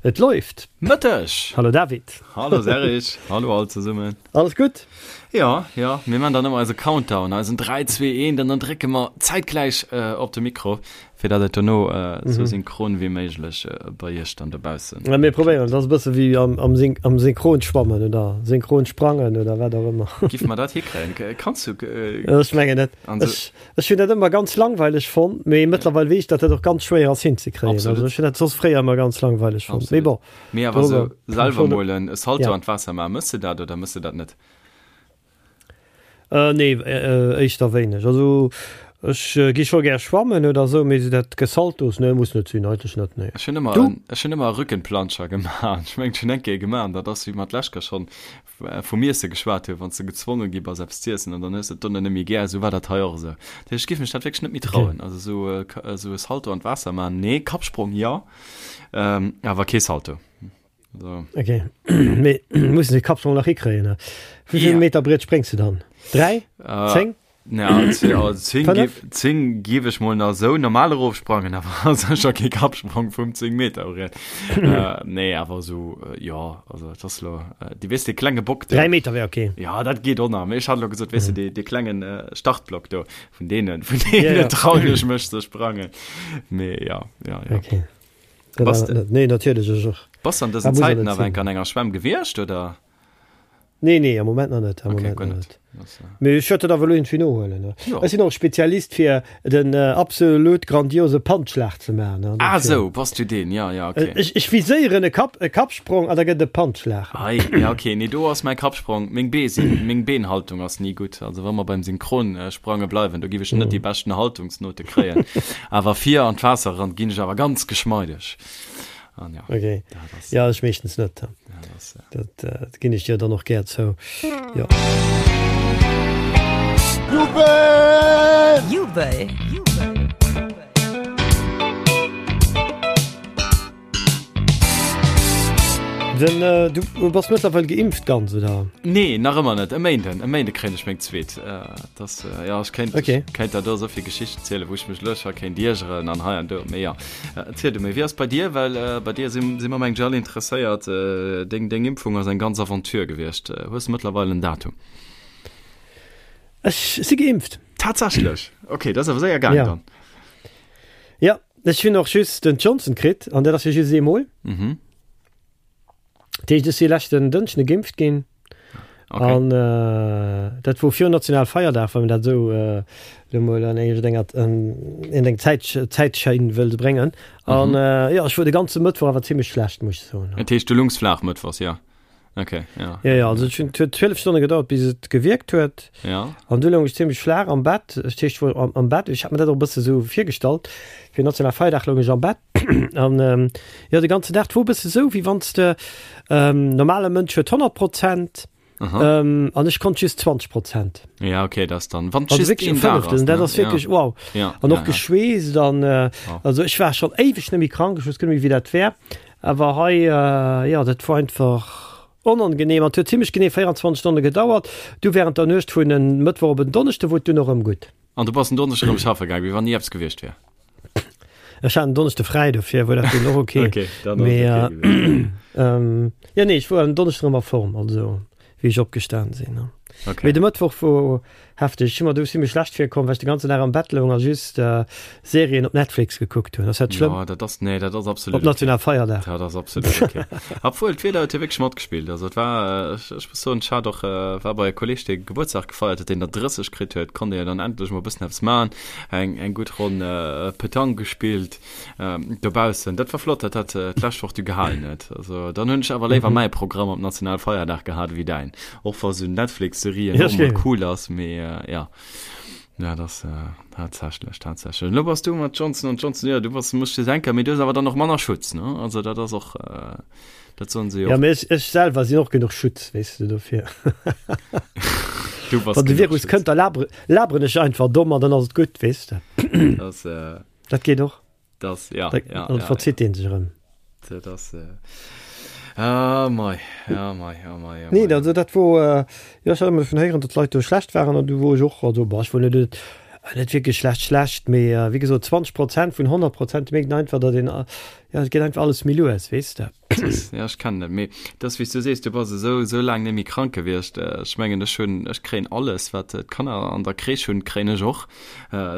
Et läuft. Mëtteg! Hallo David. Hallo Serge, hallo all zesummen. Alles gutt? Jo, jo, mir man dann ëmmer eise Countdown, eisen 3, 2, 1, an dann drécke mer zäitgläich op de Mikro, fir datt et dono esou synchron wéi méiglech bei iech dann dobaussen. Ja, mir probéieren, et ass e bësse wéi am, am, am Synchronschwammen oder Synchronsprangen oder wat och ëmmer. Giff mer dat hikréien? Kanns du? Ech mengen net. Ech, Ech hunn dat ëmmer ganz langweileg fonnt, mee mëttlerweil weess ech, datt dat och ganz schwéier ass hinzekréien. Also ech hunn dat soss fréier ëmmer ganz langweileg fonnt. Mee bon. Mee awer esou selwer mol e Salto an d'Waasser maachen, mëss de dat oder mëss de dat net? Nee, éischter wéineg. Also ech gi scho gär schwammen oder esou, mee esou dat Gesaltos, nee, muss net sinn, eigentlech net, nee. Ech hunn ëmmer, ech hunn ëmmer e Rückenplanscher gemaach. Ech mengen, ech hunn eng Kéier gemaach an dat ass, wéi mer d'lescht Kéier schonn vum Iesse geschwat hunn, wann s de gezwonge gi bass eppes z'iessen an dann hues de et dono net méi gär, esou war dat hei och esou. Dat heescht, ech géif mech dat wierklech net méi trauen, also esou esou e Salto an d'Waasser maachen, nee, Kappsprong jo, awer kee Salto. Also. Ok, mee muss de Kappsprong nach hikréien, ne? Wéi vill Meter Briet spréngs de dann? 3? 10? Ja, 10 gief ech mol nach sou normal erofsprangen, awer sécher kee Kappsprong vum 10 Meter Briet. Äh, nee, awer sou, äh, ja, also et ass lo, äh, di weess, dee klenge Bock do. 3 Meter wär okay. Ja, dat geet och nach, mee ech hat lo gesot, weess de, dee, dee klengen äh, Startblock do, vun deenen, vun deene ja, ja. trauen ech mech ze sprangen. Mee ja, ja, ja. Okay. Bass de, nee, natierlech ech och. Bass an dësen Zäiten awer enk an enger Schwämm gewiescht, oder? Nee, nee, am Moment nach net. Am okay, Moment nach net. Mee ech wäert dat awer elo iergendwéi nohuelen. Ne? Ja. Ech sinn och Spezialist fir den äh, absolut grandiose Pantschlag ze maachen. Ne? Ah, sou, bass du deen, ja, ja, okay. Ech, ech viséieren e Kapp, e Kappsprong an da gëtt e Pantschlag. Ei, ja, okay, nee, do ass mäi Kappsprong, meng Bee sinn, meng Beenhaltung ass ni gutt. Also wa mer beim Synchronsprange bleiwen, do giff ech net déi beschten Haltungsnote kréien. Awer vir an d'Waasser eran ginn ech awer ganz geschmeideg. An ja, okay. Dat ass, ja, ech meeschtens net. Ja, dat ass, ja. Dat, äh, dat ginn ech dir dann och gär zou. Ja. Jubel! Jubel! Den, äh, du bass mëttlerweil geimpft ganz, oder? Nee, nach ëmmer net. E Méinden, e Méinde kréien ech meng zweet. Äh, das, äh, ja, ech kéint, okay. ech kéint der do esou vill Geschichten zielen, wou ech mech elo scho kéint iergeren an hei an do. Mee ja. Erziel du méi, wéi ass bei dir? Well bei dir si si mer mengen ech all interesséiert. Deng deng Impfung ass eng ganz Aventure gewiescht. Hues de mëttlerweil en Datum? Ech si geimpft. Tatsächlech? Ok, dat ass awer séier gaang dann. Ja, ech hunn och just den Johnson kritt an dat ass jo just eemol. Mhm. Dat heescht, ech si leschten Dënschde geimpft ginn. Okay. An äh, dat wor virun Nationalfeierdag, wann man dat esou äh, lo mol an eng, an eng Zäit, Zäitschein wëll bréngen. An mhm. äh, ja, ech wor de ganze Mëttwoch awer zimmlech schlecht, muss ich soen. Dat heescht, du lungs flaach mëttwochs, ja. Okay, ja. Ja, ja, also et huet 12 Stonne gedauert, bis et gewierkt huet. Ja. An du loung ech zimmlech flaach am Bett. Ech heescht wor am, am Bett. Ech hat mir dat och e bësse sou virgestallt. Fir Nationalfeierdag loung ech am Bett. An ähm, jo, de ganzen Dag, 't wor e bësse sou, wéi wann s de, ähm, normale Mënsch huet 100 Prozent, ähm, an ech konnt just 20 Prozent. Ja, okay, dat ass dann, wann Also just wierklech een e Dag Fënneftel, ass, dat ne? ass wierklech Ja. wow. Ja, An ja, och ja. geschweesst an, äh, Oh. also ech war schonn éiweg net méi krank, ech wousst guer net méi, wéi dat wär. Awer hei, äh, jo, dat wor einfach onangenehm an 't huet zimmlech genee 24 Stonne gedauert. Du während der Nuecht vun en Mëttwoch op en Donneschde wor et dunn och erëm gutt. An du bass en Donneschde erëm schaffe gaang, wéi wann ni eppes gewiescht wär? Ech hat en Donneschde fräi, dofir wor dat dunn och ok. Ok, dann ass et ok gewiescht. Mee, jo, nee, ech wor en Donneschden erëm a Form, also wéi ech opgestan sinn. Ok. Mee de Mëttwoch wor hefteg. Ech hu mer do zimmlech schlecht virkomm, well ech de ganzen Dag am Bett loung a just Serien op Netflix gekuckt hunn. Ass dat schlëmm? Jo, dat ass, nee, dat ass absolut Op Nationalfeierdag. Dat ass absolut ok. Obwuel, d'Wieder huet jo wierklech matgespillt. Also et war, ech, ech muss soen, ech hat och, war bei e Kolleeg, dee Gebuertsdag gefeiert huet, deen der 30 kritt huet, konnt ee jo dann endlech mol e bëssen eppes maachen, eng, eng gutt Ronn Petanque gespillt dobaussen. Dat war flott, datt dat d'lescht Woch du gehalen huet. Also dann hunn ech awer léiwer mäi Programm op Nationalfeierdag gehat ewéi däin. Och wa sou Netflix-Serien och mol cool ass, mee jo. Ja, das äh, tatsächlich, tatsächlich. Lo bass du mat Johnson und Johnson, ja, du bass, musst dir denken, mee du hues awer dann och manner Schutz, ne? Also dat ass och, äh, dat soen se jo Ja, och. mee ech, ech selwer sinn och genuch Schutz, weess de, dofir. Du bass Wann de genuch Virus Schutz. kënnt, da labere, laberen ech einfach domm an dann ass et gutt, weess de. Das, äh, Dat geet och. Das, ja, Da, ja, dann ja, verzitt ja. deen sech erëm. Dat ass, äh, ah, mei, ja, mei, ja, mei, ja, Nee, mei. also dat wor, äh, jo, ech hat ëmmer dovun héieren, datt d'Leit do schlecht waren an du wor ech och, also, bah, ech wor net, net. Net wierklech schlecht schlecht, mee wéi gesot 20 Prozent vun 100 Prozent mierkt een einfach, datt een, jo et geet einfach alles méi lues, weess de. Ja ech kennen dat, mee et ass wéi s du sees, du bass esou esou laang net méi krank gewiescht. Ech mengen ech hunn, ech kréien alles wat d'Kanner an der Crèche hunn, kréien ech och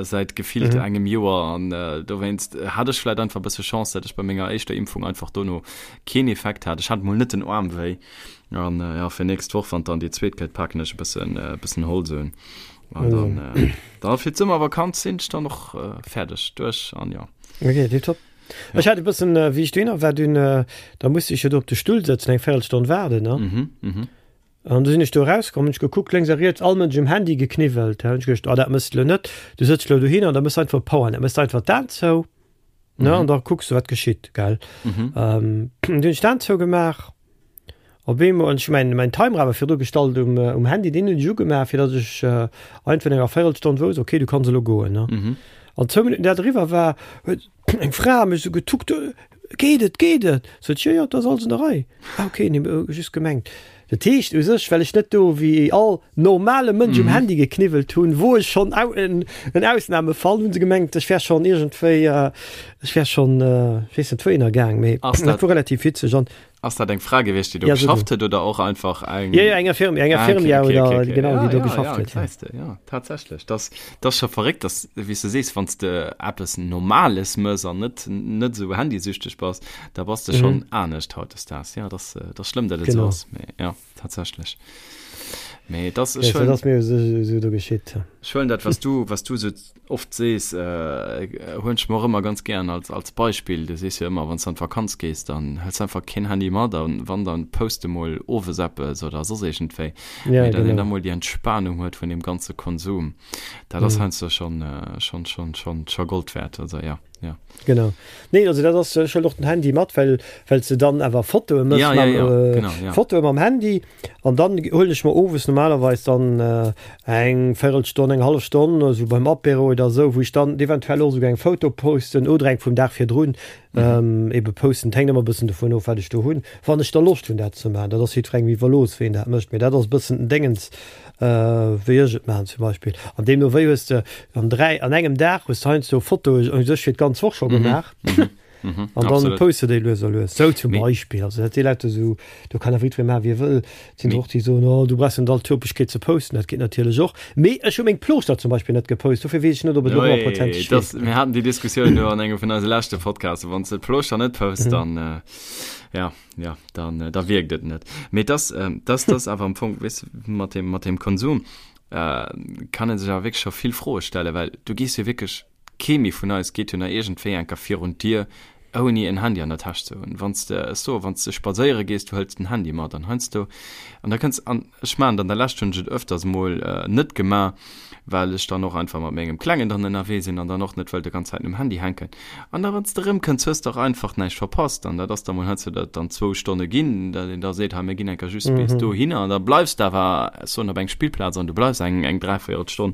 säit gefillt engem Joer an dowéinst hat ech vläit einfach e bësse Chance, datt ech bei menger éischter Impfung einfach dono keen Effekt hat. Ech hat mol net den Aarm wéi an jo fir nächst Woch, wann dann déi zweet kënnt, paken ech e bëssen e bëssen Holz un. An dann, äh, da fir d'Summervakanz sinn ech dann och äh, fäerdeg duerch an ja. Okay, tipptopp. Ja. Ech hat e bëssen, äh, wéi ech dohinner war, dunn, äh, da musste ech jo do op de Stull sëtzen, eng Véierelstonn waarden, ne? Mhm, mhm. An du sinn ech do erauskomm, hunn ech gekuckt, lénks a riets, all Mënsch um Handy gekniwwelt. Hunn ech geduecht, ah, dat mëss de lo net. Du sëtz lo dohinner an da mëss einfach Powernap, mëss einfach d'Aen zou, ne? Mhm. An da kucks du, wat geschitt, gell? Mhm. Ähm, dunn hunn ech d'Aen zougemaach. Op eemol, an ech hu mäin, mäin Timer awer virdru gestallt um, um Handy, deen hunn ech ugemaach, fir datt ech einfach no enger Véierelstonn wousst, okay, du kanns elo goen, ne. Mhm. An zwou Minutten dat eriwwer war, huet eng Fra mech esou getuckt, Geet et, geet et? Sot ech, Jo, jo, et ass alles an der Rei. Ah, okay, nee, just gemengt. Dat heescht u sech, well ech net do wéi all normale Mënsch um Handy gekniwwelt hunn, wor ech schonn au, en, en Ausnamefall, hunn se gemengt, ech wär schonn iergendwéi, ech wär schonn, ech weess net wouhinner gaang, mee Ass dat dat wor relativ witzeg an Ass dat eng Fra gewiescht, déi do Ja, so geschafft huet oder och einfach eng. Ja, ja, eng Infirmière, eng Ah, okay, Infirmière okay, oder okay, okay. genau, Ja, déi do ja, geschafft ja, huet. Ja. gesäis de, ja, tatsächlech. Das, das ass scho verréckt, dass, wéi s du sees, wann s de eppes Normales mëss an net, net esou handysüchteg bass, da bass de schonn Mhm. anescht hautdesdaags. Ja, das, das ass schlëmm, datt et esou Genau. ass, mee ja, tatsächlech. Mee das, Ja, ech so, huelen, dat ass mir esou, esou do geschitt. ech huelen dat, wat s du, wat s du esou oft sees, huelen ech mer och ëmmer ganz gären als, als Beispill. Du sees jo ëmmer, wann s de an d'Vakanz gees, dann hëls de einfach keen Handy mat an wann, dann post de mol owes eppes oder soss iergendwéi. Ja, Mee datt een genau. da mol déi Entspanung huet vun deem ganze Konsum, dat ass Mhm. heiansdo schonn, schonn, schonn, schonn, scho Gold wäert. Also ja, ja. Genau. Nee, also dat ass, ech huelen och den Handy mat, well, well s de dann awer Fotoe mëss Ja, ja, mam, ja, äh, genau, ja. Fotoe mam Handy. An dann huelen ech mer owes normalerweis dann eng Véirelstonn, eng hallef Stonn, esou beim Apéro oder esou, wou ech dann eventuell och esouguer eng Foto posten oder eng vum Dag virdrun ebe posten. Et hänkt ëmmer e bëssen dovun of, wat ech do hunn, wann ech da Loscht hunn, dat ze maachen. Dat ass jiddwerengem iwwerlooss, wéi en dat mécht, mee dat ass e bëssen den Déngens, wéi ech et maachen zum Beispill. An deemno wéi hues de an 3, an engem Dag hues de heiansdo Fotoe u sech fir d'ganz Woch scho gemaach. Mhm, An dann absolut. poste déi lues a lues. Sou zum Mee- Beispill. Also dat si Leit esou, do kann awer jiddweree maachen, wéi e wëll. Et sinn Mee- och déi soen, oh du brauchs net all d'Topegkeet ze posten. Dat geet natierlech och. Mee ech hu meng Plooschter zum Beispill net gepost, dofir weess ech net, ob et elo Ui, honnertprozenteg das, wierkt. mir haten déi Diskussioun do an engem vun eise leschte Podcasten. Wann s de d'Plooschter net posts, Mhm. dann, äh, ja, ja, dann, äh, da wierkt et net. Mee das, ähm, das, das awer am Fong, weess de, mat dem, mat dem Konsum, äh, kann ee sech awer wierklech scho vill Froe stellen, well du gees jo wierklech Kee méi vun eis geet jo nach iergendwéi enker virun d'Dier, ouni en Handy an der Täsch ze hunn. Wann s de, ech soe, wann s de spadséiere gees, du hëls den Handy mat an heiansdo, an da kënns, an ech maachen et, an der Lescht hunn ech et öfters emol net gemaach, well ech dann och einfach mat mengem Klengen dann ënnerwee sinn an dann och net wëll de ganz Zäiten um Handy hänken. An da wann s de erëmkënns, hues de och einfach näischt verpasst. An dat ass da mol heiansdo, datt et dann zwou Stonne ginn, datt een da seet, hei mir ginn enker just bis dohinner an da bleifs de awer, ech soen, op eng Spillplaz an du bleifs eng, eng Dräivéierelstonn.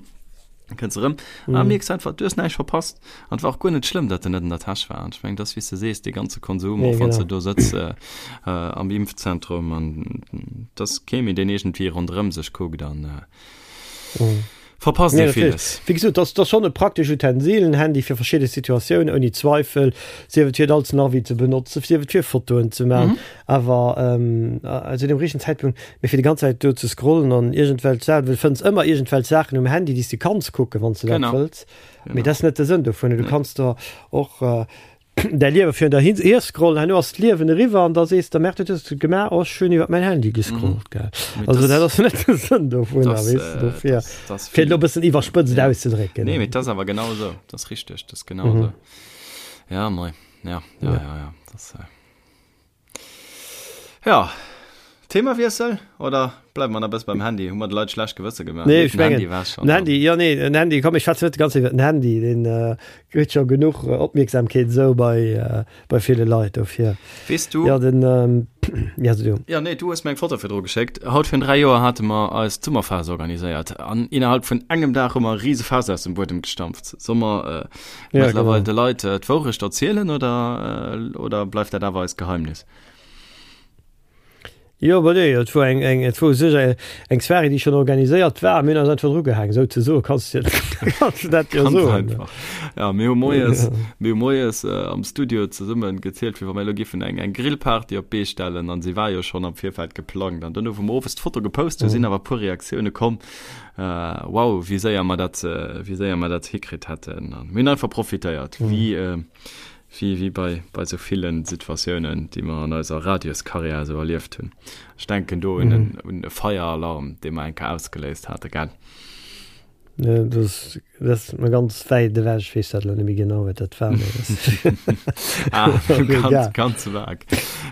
Kënns erëm a mm. mierks einfach, du hues näischt verpasst. An et war och guer net schlëmm, datt en net an der Täsch war. An ech meng, dat ass wéi s de sees, dee ganze Konsum, och wann s de do sëtz äh, äh, am Impfzentrum an et ass kee méi, deen iergendwéi ronderëm sech kuckt an äh, mm. verpasst Nee, ee natierlech. villes. Wéi gesot, dat ass schonn e praktesch Utensil, en Handy fir verschidde Situatiounen, ouni Zweifel, sief et fir et als Navi ze benotzen, sief et fir Fotoen ze maachen. Mhm. Awer ähm, zu dem richtegen Zäitpunkt, mee fir déi ganz Zäit do ze scrollen an iergendwelch Saachen, well du fënns ëmmer iergendwelch Saachen um Handy, déi s de kanns kucken, wann s de dat Genau. wëlls. Mee Genau. dat ass net de Sënn dovun. Du Nee. kanns der och äh, däi Liewe virun der hin hier scrollen, herno ass d'Liewen eriwwer an da sees de, Merde, wat hues de gemaach? Oh, ech hunn iwwer mäin Handy Mhm. gescrollt, gell. Mee Also das, dat ass net de Sënn dovunner, das, weess de, äh, dofir, das, das fir et elo e vill. bëssen iwwerspëtzt Ja. auszedrécken. Nee, mee dat ass awer genau esou. Dat ass richteg, dat ass genau Mhm. esou. Ja, mei. Ja, ja, Ja. ja, ja. Das, äh, Ja, Themawiessel oder bleiwe mer nach e bësse beim Handy? Hu mer de Leit schlecht Gewësse gemaach? Nee, Nee, ech den mengen, Handy war schon den Handy, dann. jo, nee, den Handy, komm, ech schwätzen net déi ganz Zäit iwwer den Handy, deen kritt scho genuch Opmierksamkeet esou bei, bei ville Leit, dofir. Weess du. Jo, den, ja, so du. Jo, nee, du hues mir eng Foto virdru geschéckt. Haut virun 3 Joer hate mer eis d'Summerfaass organiséiert an innerhalb vun engem Dag hu mer e rise Faass aus dem Buedem gestampft. Soll mer Ja, mëttlerweil genau. de Leit d'Wourecht erzielen oder, oder bleift dat awer eist Geheimnis? Jo, bah nee, et wor eng, eng, et wor u sech eng, eng Soirée, déi schonn organiséiert war, mir hunn eis einfach drugehaang, souzesoen, kanns de, kanns de dat jo Ganz soen. einfach. Ja, mir hu moies, mir hu moies am Studio zesummen gezielt, wéi wa mir elo giffen eng, eng Grillparty op d'Bee stellen, an se war jo schonn am Virfeld geplangt. An duerno, wou mer owes d'Foto gepost hunn, sinn awer e puer Reaktioune komm, wow, wéi séier mer dat, wéi séier mer dat hikritt hätten. An mir hunn einfach profitéiert, wéi, Wéi wéi bei bei sou villen Situatiounen, déi mer an eiser Radioskarriär esou erlieft hunn. Ech denken do un en un e Feieralarm, dee mer eng Kéier ausgeléist hate, gell? Jo, dat ass dat ass mer ganz wäit ewech. Ech weess dat elo net méi genau, wat dat war, mee dat Ah, ass och ganz, egal. ganz vag.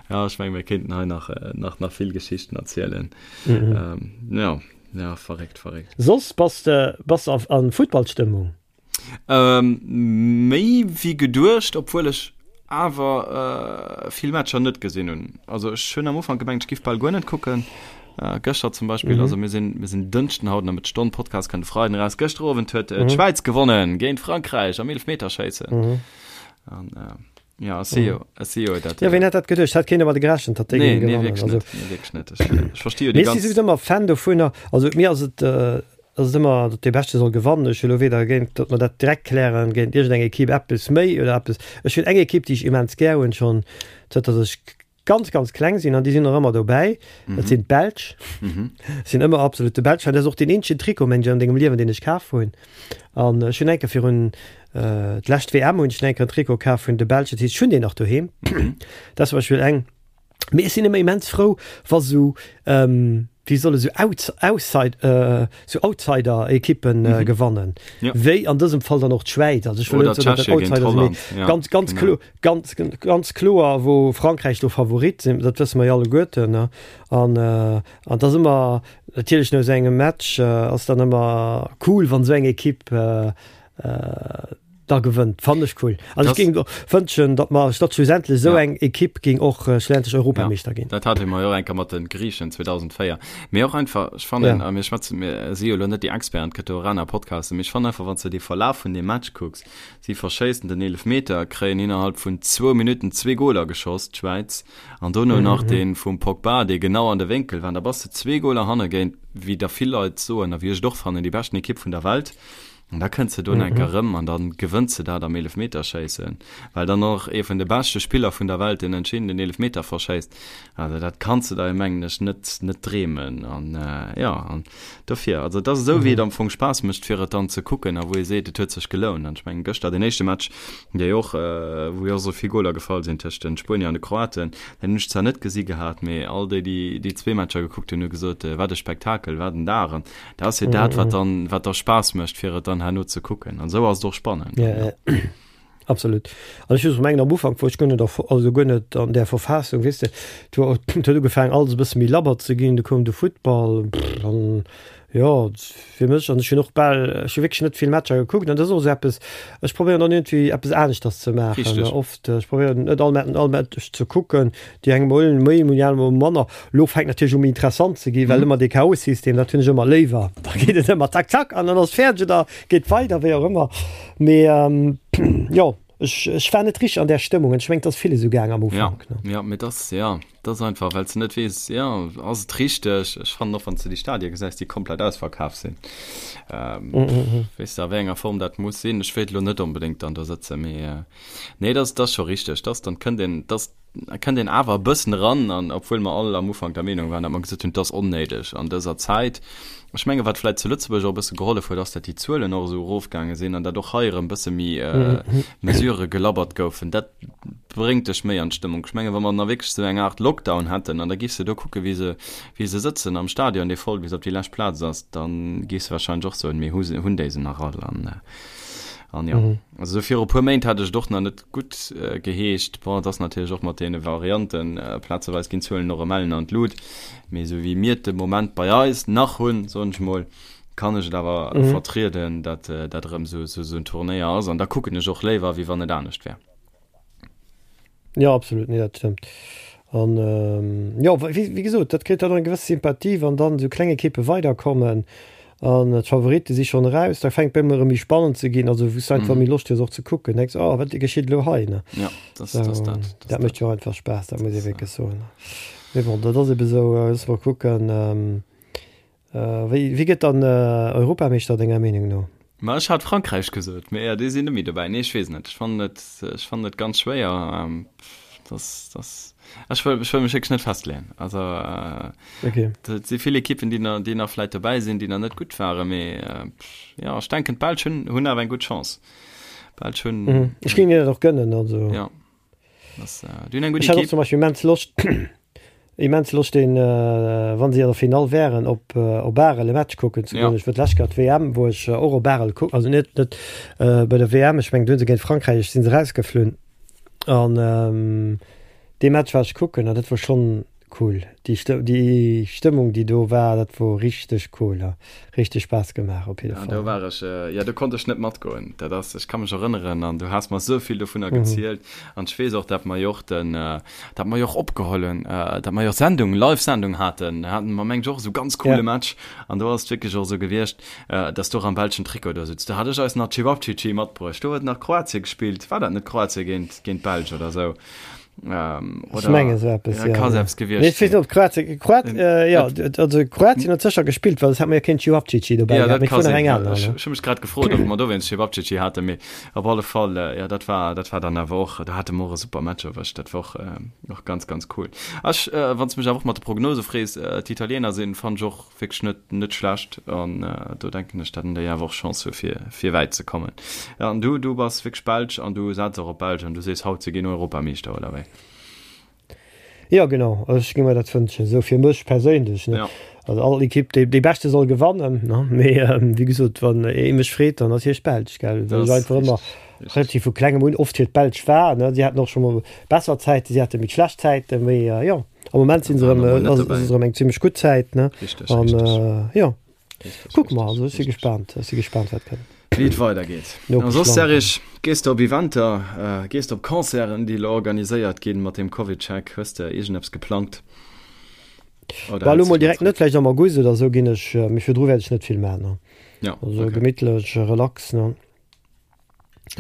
Ja, ech menge mir kéinten hei nach nach nach vill Geschichten erzielen. Jo, ja, verréckt, verréckt. Soss bass de bass de a Futtballstëmmung? Ähm, méi wéi geduecht, obwuel ech awer äh, vill Matcher net gesinn hunn. Also ech hunn am Ufank gemengt, ech giff bal guer net kucken. Äh, gëschter zum Beispill, mhm. also mir sinn, mir sinn Dënschden haut nach mit Stonn Podcast kann de Freiden raus. Gëschter Owend huet äh, mhm. d'Schwäiz gewonnen géint Frankräich am Eelefmeterschéissen. Mhm. An, äh, ja, si jo, si jo dat. Ja, wien hätt dat geduecht? Hat keen domat gerechent, datt déi nee, géingen nee, gewannen. wierklech Also, net, nee, wierklech net. Ech, ech versti jo déi mir si ganz. souwisou ëmmer Fan dovunner. Also mir ass et äh, ass et ëmmer, datt dee Beschte soll gewannen. Ech hu lo weder géint, datt mer dat direkt klären, géint iergendeng Ekipp eppes méi oder eppes. Ech hunn eng Ekipp, déi ech immens gär hunn, schonn zënter datt ech ganz, ganz kleng sinn, an déi sinn och ëmmer dobäi, dat sinn d'Belsch. Ech sinn ëmmer absolutte Belsch-Fan. Dat ass och deen eenzegen Trikot, mengen ech, an dengem Liewen, deen ech kaf hunn. An ech hunn eng Kéier virun, d'lescht WM hunn ech eng Kéier en Trikot kaf vun de Belsch, dat heescht, ech hunn deen nach doheem. Dat ass zum Beispill eng. Mee ech sinn ëmmer immens frou, wa sou, wéi soll ech sou, Outs-, Outside, sou Outsider-Ekippen gewannen. Ja. Wéi an dësem Fall dann och d'Schwäiz. Also ech wëll Oder net soen, datt dat d'Tschechie géint Outsider sinn, mee Holland. Ja, ganz, ganz genau. klo-, ganz, ganz kloer, wou Frankräich do Favorit sinn, dat wësse mer jo alleguerten, ne. An, an et ass ëmmer, natierlech no esou engem Match ass dann ëmmer cool, wann esou eng Ekipp da gewënnt, fannen ech cool. Also ech géing och wënschen, datt mer, datt schlussendlech esou eng Ekipp géing och schlussendlech Europameeschter ginn. Dat hate mer jo och eng Kéier mat de Griichen 2004. Mee och einfach, ech fannen, a mir schwätzen, mir si jo elo net déi Experten, et gëtt jo och aner Podcasten, mee ech fannen einfach, wann s de dee Verlaf vun deem Match kucks, si verschéissen den Eelefmeter, kréien innerhalb vun zwou Minutten zwee Goler geschoss, d'Schwäiz, an dono nach dee vum Pogba, dee genau an de Wénkel war, an da bass de zwee Goler hanne géint, wéi der vill Leit soen a wéi ech et och fannen, déi beschten Ekipp vun der Welt. An da kënns de do enk erëm an dann gewënns de dat am Eelefmeterschéissen, well dann och ee vun de beschte Spiller vun der Welt den entscheedenden Eelefmeter verschéisst. Also dat kanns de der, mengen ech, net net dreemen. An jo, an dofir, also et ass esou wéi et am Fong Spaass mécht fir et dann ze kucken a wou ee seet, et huet sech gelount. An ech mengen gëschter deen éischte Match, dee jo och, wou jo och esou vill Goler gefall sinn tëscht de Spuenier an de Kroaten, deen hunn ech zwar net gesi gehat, mee all déi, déi déi zwee Matcher gekuckt hunn, hu gesot, wat e Spektakel, wat en Dag. An Dat ass jo dat, wat dann, wat da Spaass mécht, fir et dann herno ze kucken. An esou ass et och spannend. Ja, ja. Absolut. An ech muss mengen, am Ufank wor ech guer net, also guer net an där Verfassung, weess de, et huet et huet ugefaangen alles e bësse méi labber ze ginn, du koum de Futtball, pff, an jo, fir mech, an ech hunn och bal, ech hu wierklech net vill Matcher gekuckt, an dat ass och esou eppes, ech probéieren dann iergendwéi eppes aneschters ze maachen, Richteg. oft, ech probéieren net all all Match ze kucken, Déi eng mol méi, déi aner mol manner. Lo fänkt natierlech u méi interessant ze ginn, well ëmmer dee K.O.-System, dat hunn ech ëmmer léiwer. Da geet et ëmmer zack, zack an dann ass fäerdeg oder geet weider, wéi och ëmmer. Mee jo, ech, ech war net richteg an där Stëmmung an ech mengen, et ass ville sou gaang am Ufank. Ja, ja, mee dass, ja, dat ass einfach, well s de net weess, jo, ass et richteg? Ech fannen och, wann s de déi Stadie gesäis, déi komplett ausverkaf sinn, weess de, a wéi enger Form dat muss sinn. Ech wéilt elo net onbedéngt dann do sëtzen, mee nee, dat ass scho richteg, dass dann kënnt een, dass kënnt een awer e bëssen eran an obwuel mer all am Ufank der Meenung waren, datt mer gesot hunn, et ass onnéideg an dëser Zäit. Ech menge wat vläicht zu Lëtzebuerg och e bësse gehollef huet, ass, datt déi Zuelen och esou erofgaange sinn an datt och hei erëm e bësse méi Mesurë gelabbert goufen. Dat bréngt dech méi an d'Stëmmung. Ech menge wa mer nach wierklech esou eng Aart Lockdown hätten an da giffs de do kucke wéi se, wéi se sëtzen am Stadion, dee voll bis op déi lescht Plaz ass, da giffs de warscheinlech och soen, mee hu se, hunn déi se nach all? An, an jo, also esou viru e puer Méint hat ech et och nach net Gutt geheescht. Bon, et ass natierlech och mat deene Varianten, plazeweis ginn d'Zuelen och ëm Ellen an d'Lut, mee esou wéi mir et de Moment bei eis nach hunn, soen ech mol, kann ech et awer vertrieden, datt dat erëm esou esou en Turnéier ass an da kucken ech och léiwer, wéi wann et anescht wär. Jo, absolut, nee, dat stëmmt. An jo, wéi gesot, dat kritt dann och eng gewëss Sympathie, wann dann esou kleng Ekippe weiderkommen an d'Favoritte si schonn eraus, da fänkt et bei mir erëm méi spannend ze ginn, also wou s du einfach méi Loscht hues och ze kucken, denks, oh wat geschitt elo hei, ne? Ja, dat ass dat. Dat mécht jo och einfach Spaass, dat muss ee wierklech soen. Mee bon, dat ass ebe sou. Loosse mer kucken. Wéi, wie gëtt dann Europameeschter denger Meenung no? Ma ech hat Frankräich gesot, mee jo, déi sinn net méi dobäi. Nee, ech weess net. Ech fannen et, ech fannen et ganz schwéier. Das, das, ech wëll, ech wëll mech wierklech net festleeën. Also okay. Et si vill Ekippen, déi nach, déi nach vläit dobäi sinn, déi nach net gutt waren, mee jo, ech denken d'Belsch hunn, hunn awer eng gutt Chance. D'Belsch hunn. Mhm. Ech géing hinnen dat och gënnen, also. Ja. Das, äh, du eng gutt Ech hat och zum Beispill immens Loscht, immens Loscht den, äh, wann si an der Finall wären, op, äh, op Arel e Match kucken ze goen. Ja. Ech wor d'lescht Kéier d'WM, wou ech och op Arel kucken, also net, net äh, bei der WM, ech mengen do hunn se géint Frankräich, sinn se rausgeflunn. An ähm, dee Match war ech kucken an dat wor schonn cool. Déi Stë déi Stëmmung, déi do war, dat wor richteg cool, ha richteg Spaass gemaach op jidde Fall. Ja, do war ech, jo, do konnt ech net matgoen. Dat ass, ech ka mech erënneren an du has mer esou vill dovunner gezielt an ech weess och, dat mer jo och den, dat mer jo och opgeholl hunn, dat mer jo och Sendung, Live-Sendung haten, haten mer meng ech och esou ganz coole Match an do ass et wierklech och esou gewiescht, dass du och am belschen Trikot do sutz. Do hat ech eis nach Cevapcici matbruecht, do huet nach Kroatien gespillt, war dat net Kroatien géint, géint d'Belsch oder esou? Ähm, oder, Ech menge sou eppes, ja. Ka selbst gewiescht Nee, ech weess net, ob Kroatien, Kroat, äh, ja, also Kroatien huet sécher gespillt, well et hat mer jo keen Cevapcici dobäi Ja, dat ka sinn. Eng aner, ech, ech hu mech grad gefrot, ob mer dowéinst Cevapcici haten, mee op alle Fall, äh, ja, dat war, dat war dann awer och, do hate mer och e super Match erwëscht, dat war och, äh, och ganz, ganz cool. Ech, äh, wann s mech awer och mat de Prognose frees, äh, d'Italiener sinn, fannen ech och wierklech net, net schlecht an äh, do denken ech, dat déi awer och Chance hu fir, fir wäit ze kommen. Ja, an du, du bass wierklech Belsch an du setz och op Belsch an du sees haut, se ginn Europameeschter, oder wéi? Ja genau, ech géing mer dat wënschen, esou fir mech perséinlech, ne. Ja. Also all Ekipp, déi, déi beschte soll gewannen, ne, mee ähm, wéi gesot, wann ee mech freet, dann natierlech d'Belsch, gell, well Das ech einfach ëmmer richtig, relativ vu klengem un oft fir d'Belsch war, ne. Si haten och scho mol besser Zäiten, si hate méi schlecht Zäiten, mee äh, jo. Am Moment sinn se erëm, ass et erëm eng zimmlech gutt Zäit, ne? Richteg, An richteg. jo, kucke mer. Also ech si gespaant, ech si gespaant, wat kënnt. Wéi et weidergeet. A soss, Serge, gees de op Eventer, gees de op Concerten, déi elo organiséiert ginn mat deem CovidCheck? Hues de iergendeppes geplangt? Oder Bah, elo mol direkt net, vläicht am August oder esou ginn ech, mee virdru wäert ech net vill maachen, ne? Ja, Also okay. Gemittlech, relax, ne?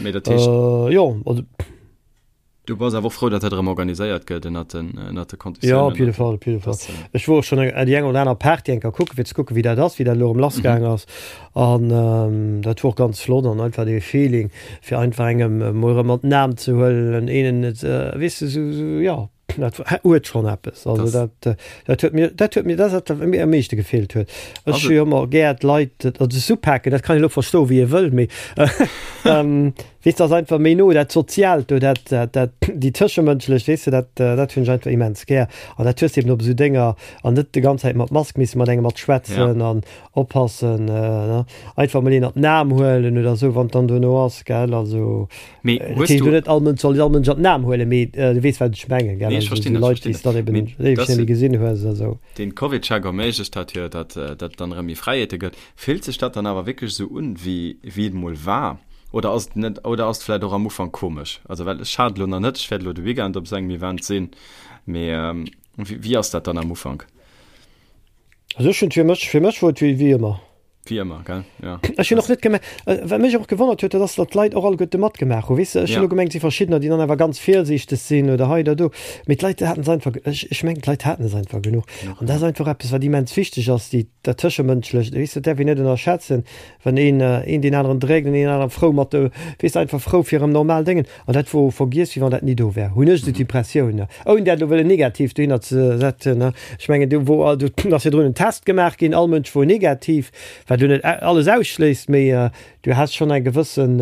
Mee dat heescht. Jo, also. Du bass awer och frou, datt dat erëm organiséiert gëtt ënnert den, ënnert de Konditiounen. Jo, op jidde Fall, op jidde Fall. Ech wor och schonn eng, déi eng oder aner Party eng Kéier kucken, fir ze kucken, wéi dat ass, wéi dat elo erëm lassgaang ass. An dat wor och ganz flott an einfach dee Feeling, fir einfach engem emol erëm an den Aarm ze huelen, een et, weess de, sou, sou, jo, dat huet schonn eppes. Also dat, dat huet mir, dat huet mir, dat ass dat, wat mir am meeschte gefeelt huet. Ech hu jo ëmmer gär d'Leit, also s'upaken, dat kann een elo verstoen, wéi ee wëll, mee Weess de, ass einfach méi no, dat Soziaalt do, dat, dat, dat, déi Tëschemënschlecht, weess de, dat, dat hunn ech einfach immens gär. An dat hues de eben op esou Dénger an net de ganz Zäit mat Mask misse mat engem mat schwätzen an oppassen, ne, einfach mol een an den Aarm huelen oder esou, wann et dann dono ass, gell, also. Mee Dat hues heescht du. elo net, all Mënsch soll all Mënsch an den Aarm huelen, mee du weess, wat ech mengen, gell, Nee, ech also verstinn esou dat, ech Leit, déi verstinn s de dat. dann eben Mee éiweg dass net méi gesinn hues a sou. den CovidCheck erméiglecht hat jo, datt, datt et dann erëm méi Fräiheete gëtt. Fillt sech dat dann awer wierklech esou un, wéi wéi et mol war? Oder ass et net, oder ass et vläit och am Ufank komesch? Also well ech hat elo nach net, ech wäert elo de Weekend op esou engem Event sinn, mee wéi wéi ass dat dann am Ufank? Also ech hunn fir mech, fir mech wor et wéi wéi ëmmer. Wéi ëmmer, gell? Jo. Ech hunn och net gemerkt, wat mech och gewonnert huet, dat ass, datt d'Leit och alleguerte matgemaach hunn. Weess de, ech hunn elo gemengt, et si verschiddener, déi dann awer ganz virsiichteg sinn oder hei oder do, mee d'Leit haten es einfach, ech ech mengen d'Leit haten es einfach genuch. An dat ass einfach eppes, wat immens wichteg ass, déi Dat Tëschemënschlecht, weess de, dat däerf een net ënnerschätzen, wann een een deen aneren dréckt en een aneren frou mat de, weess de, einfach frou fir erëm normal Déngen. An dat wor vergiess, wéi wann dat ni do wär, hunn ech esou d'Impressioun, ouni dat elo wëllen negativ dohinner ze setzen. Ech mengen, do wor, do ass virdrun en Test gemaach ginn, all Mënsch wor negativ, wat elo net alles ausschléisst, mee du has schonn eng gewëssen,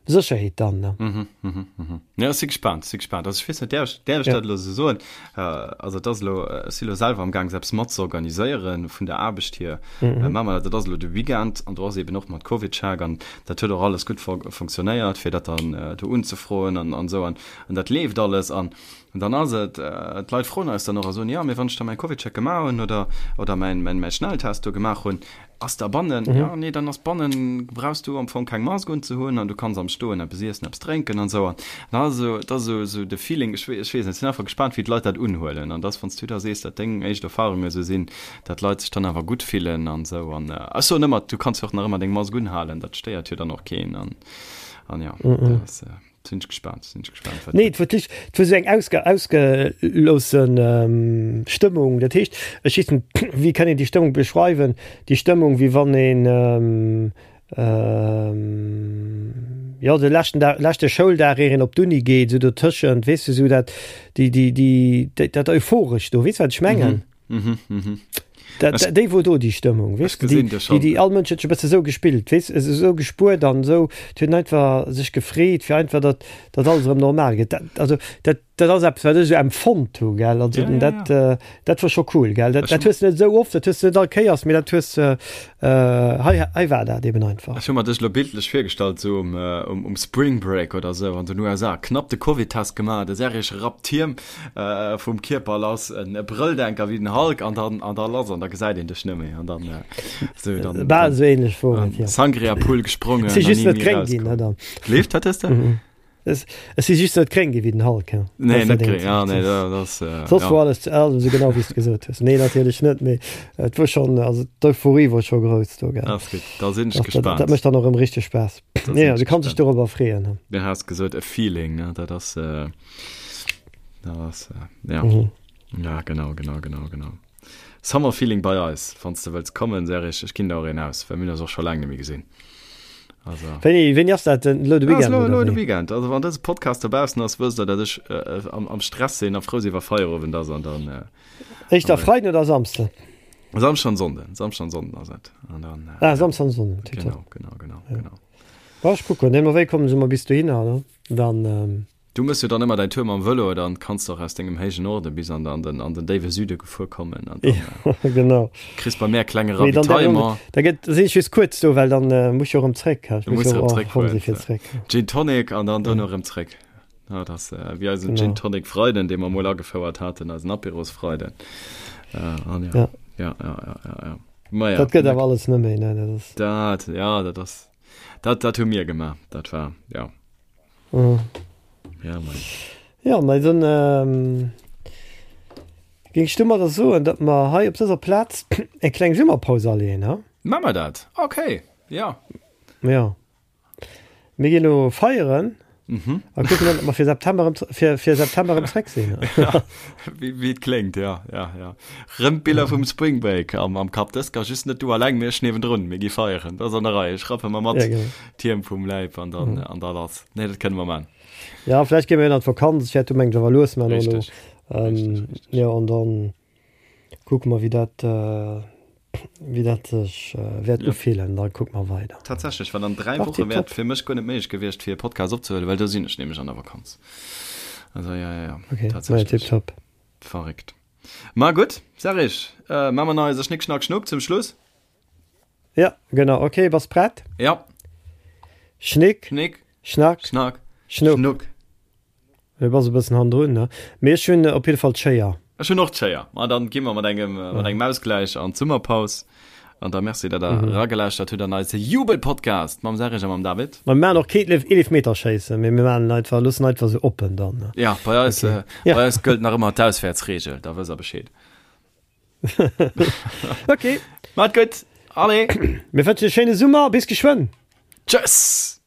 Sécherheet dann, ne? Mhm, mhm, mhm. Ja, ech si gespaant, si gespaant. Also ech weess net, däerf ech, däerf ech dat elo esou soen? Also et ass elo, ech si elo selwer am Gaang, eppes mat ze organiséieren vun der Aarbecht hier. Mhm. Maache mer dat, dat ass elo de Weekend an do ass eben och mat CovidCheck an dat huet och alles gutt funktionéiert, fir dat dann do unzefroen an, an esou an, an dat leeft alles an dann ass et, d'Leit froen eis dann och a soen, jo, mee wann ech da mäi CovidCheck gemaach hunn oder, oder mäin, mäin, mäi Schnelltest do gemaach hunn, Ass da bannen? Jo, nee, dann ass bannen, brauchs du am Fong keng Mask unzehunn an du kanns am Stoen eppes iessen, eppes drénken an esou. An dann ass esou, dat ass esou, esou de Feeling, ech weess, ech weess net, ech sinn einfach gespaant, wéi d'Leit dat unhuelen. An dass, wann s du da sees, dat deng éischt Erfarunge esou sinn, dat d'Leit sech dann awer gutt fillen an esou. An ech soen ëmmer, du kanns jo och nach ëmmer deng Mask unhalen, dat stéiert jo dann och keen. An, an jo, dat ass. Sinn ech gespaant, sinn ech gespaant, wat Nee, et wor d'Licht, et wor esou eng ausge, ausgeloossen Stëmmung. Dat heescht, ech weess net, wéi kann een déi Stëmmung beschreiwen? Déi Stëmmung, wéi wann een, jo, de leschten Dag, leschte Schouldag, ier een op d'Uni geet, esou dotëschent, weess de, esou dat, déi, déi, déi, dat Euphorescht do, weess de, wat ech mengen? Mhm, mhm. Dat, dat, déi wor do déi Stëmmung, weess de, déi, déi, déi all Mënsch huet sech e bësse sou gespillt, weess, esou gespuert an esou, huet einfach sech gefreet, fir einfach, datt, datt alles erëm normal gëtt. Dat, also, dat, dat ass eppes, wat ech esou empfonnt hu, gell, also ja, ja, dat, ja. Äh, dat wor scho cool, gell, dat, dat hues de net esou oft, dat hues de net all Kéiers, mee dat hues de, äh, hei, hei war dat eben einfach. Ech hu mer dech elo bildlech virgestallt, esou um, um, um Spring Break oder esou an den USA, knapp de Covid-Test gemaach, de Serge rappt d'Hiem, Vum Kierper lass, en Brëlldenker wéi den Hulk an dann an da lass an da gesäit een dech net méi an dann sou dann Bal esou ähnlech wor et, jo. Sangria Pool gesprongen Si just net gréng ginn, ne dann. Leeft wat hues de? Ech si just net gréng gi wéi den Hulk, ja. Nee net gréng, ja nee dat ass Soss wor alles alles esou genau wéi s de gesot hues. Nee natierlech net, mee et wor schonn, also d'Euphorie wor scho grouss do, gell. Ass gutt, da sinn ech gespaant. Dat mécht dann och erëm richteg Spaass. Nee, du kanns dech dorobber freeën. Du has gesot e Feeling, ne, dat ass. Das, äh, ja. Mhm. Ja, genau, genau, genau, genau. Summer Feeling bei eis, wann du wëlls kommen, Serich, ech ginn der och een aus, well mir hunn eis och scho laang net méi gesinn. Also. Wéini, wéini ass dat denn? Lo de Weekend? Lo, lo de Weekend. Also wann dëse Podcast dobaussen ass, wësst der, dat ech äh, am, am Stress sinn a frou sinn, wa Feierowend ass an dann. Äh, Éischter Freiden oder Samsden? Samschden an Sonnden. Samschden an Sonnden ass et. An dann, äh, ah, Samschden an Sonnden. Genau, genau, genau, ja. genau. Bon, ech kucken. Nee, ma wéi kommen se mer bis dohinner, ne? Dann. Ähm Du mëss jo dann ëmmer däin Tour mam Vëlo, dann kanns de och aus dengem héijen Norde bis an den an den déiwe Süde gefuer kommen an dann ja, genau. kriss bei mär klenge Ravitaillement. Da gëtt sinn ech just kuerz do, well dann äh, muss jo erëm zréck. Du muss erëm zréck fueren. Zréck. Gin Tonic an dann dono erëm zréck. Ja, dat ass äh, wéi eisen genau. Gin Tonic Freiden, dee mer mol agefouert haten, eisen Apéros Freiden. Äh, an ja. Ja. Ja, ja, ja, ja, ja. Ma ja. Dat gëtt awer alles net méi, ne? Dat ass. Dat, ja, dat ass. Dat, dat hu mir gemaach. Dat war, ja. Mhm. Ja, mei. Ja, mei dann ähm, géing ech domadder soen, datt mer hei op dëser Plaz eng kleng Summerpaus aleeën, ha? Maa mer dat? Okay, ja. Ja. Mir ginn elo feieren mhm. a kucken dann, ob mer fir September erëm, fir, fir September erëm zréck sinn. ja, wéi, wéi et kléngt, ja, ja, ja. Rëm d'Biller vum Spring Break am, am Kapp. Dës ka just net du alleng, mee ech niewendrun. Mir gi feieren. Dat ass an der Rei. Ech rappe mer mat. Ja, genau. D'Hiem vum Läib an dann mhm. an da lass. Nee, dat kënne mer man. Ja, vielleicht gehen wir an d'Vakanz. Ech wäert du mengt awer lues man elo. Ähm, ja, an dann kucke mer, wéi dat, äh, wéi dat sech äh, wäert ja. ufillen. Dann kucke mer weider. Tatsächlech, well an 3 Woche wäert fir mech guer net méiglech gewiescht, fir e Podcast opzehuelen, well do sinn ech nämlech an der Vakanz. Also ja, ja, ja. Okay, tatsächlich. Ja, tipptopp. Verréckt. Ma gutt, Serge, äh, ma mer nach eise Schnick, Schnack, Schnuck zum Schluss. Ja, genau. Okay, bass prett? Ja. Schnick. Schnick. Schnack. Schnack. Schnuck. Schnuck. Du bass e bëssen hannendrun, ne? Mee ech hunn op jidde Fall d'Schéier. Ech hunn och d'Schéier. Ma dann gi mer mat engem, ja. mat engem Ausgläich an d'Summerpaus. An da merci, datt der mhm. ragelauschtert hutt an eise Jubelpodcast mam Serge a mam David. Ma mir maachen och keen Eelefmeterschéissen, mee mir maachen einfach, loossen einfach sou oppen dann. Ne? Ja, bei eis, okay. äh, ja. bei eis gëllt nach ëmmer d'Auswäertsregel, da wësst der Bescheed. Okay. Maat gutt. Allez. Mir wënschen e schéine Summer. Bis geschwënn. Tschëss.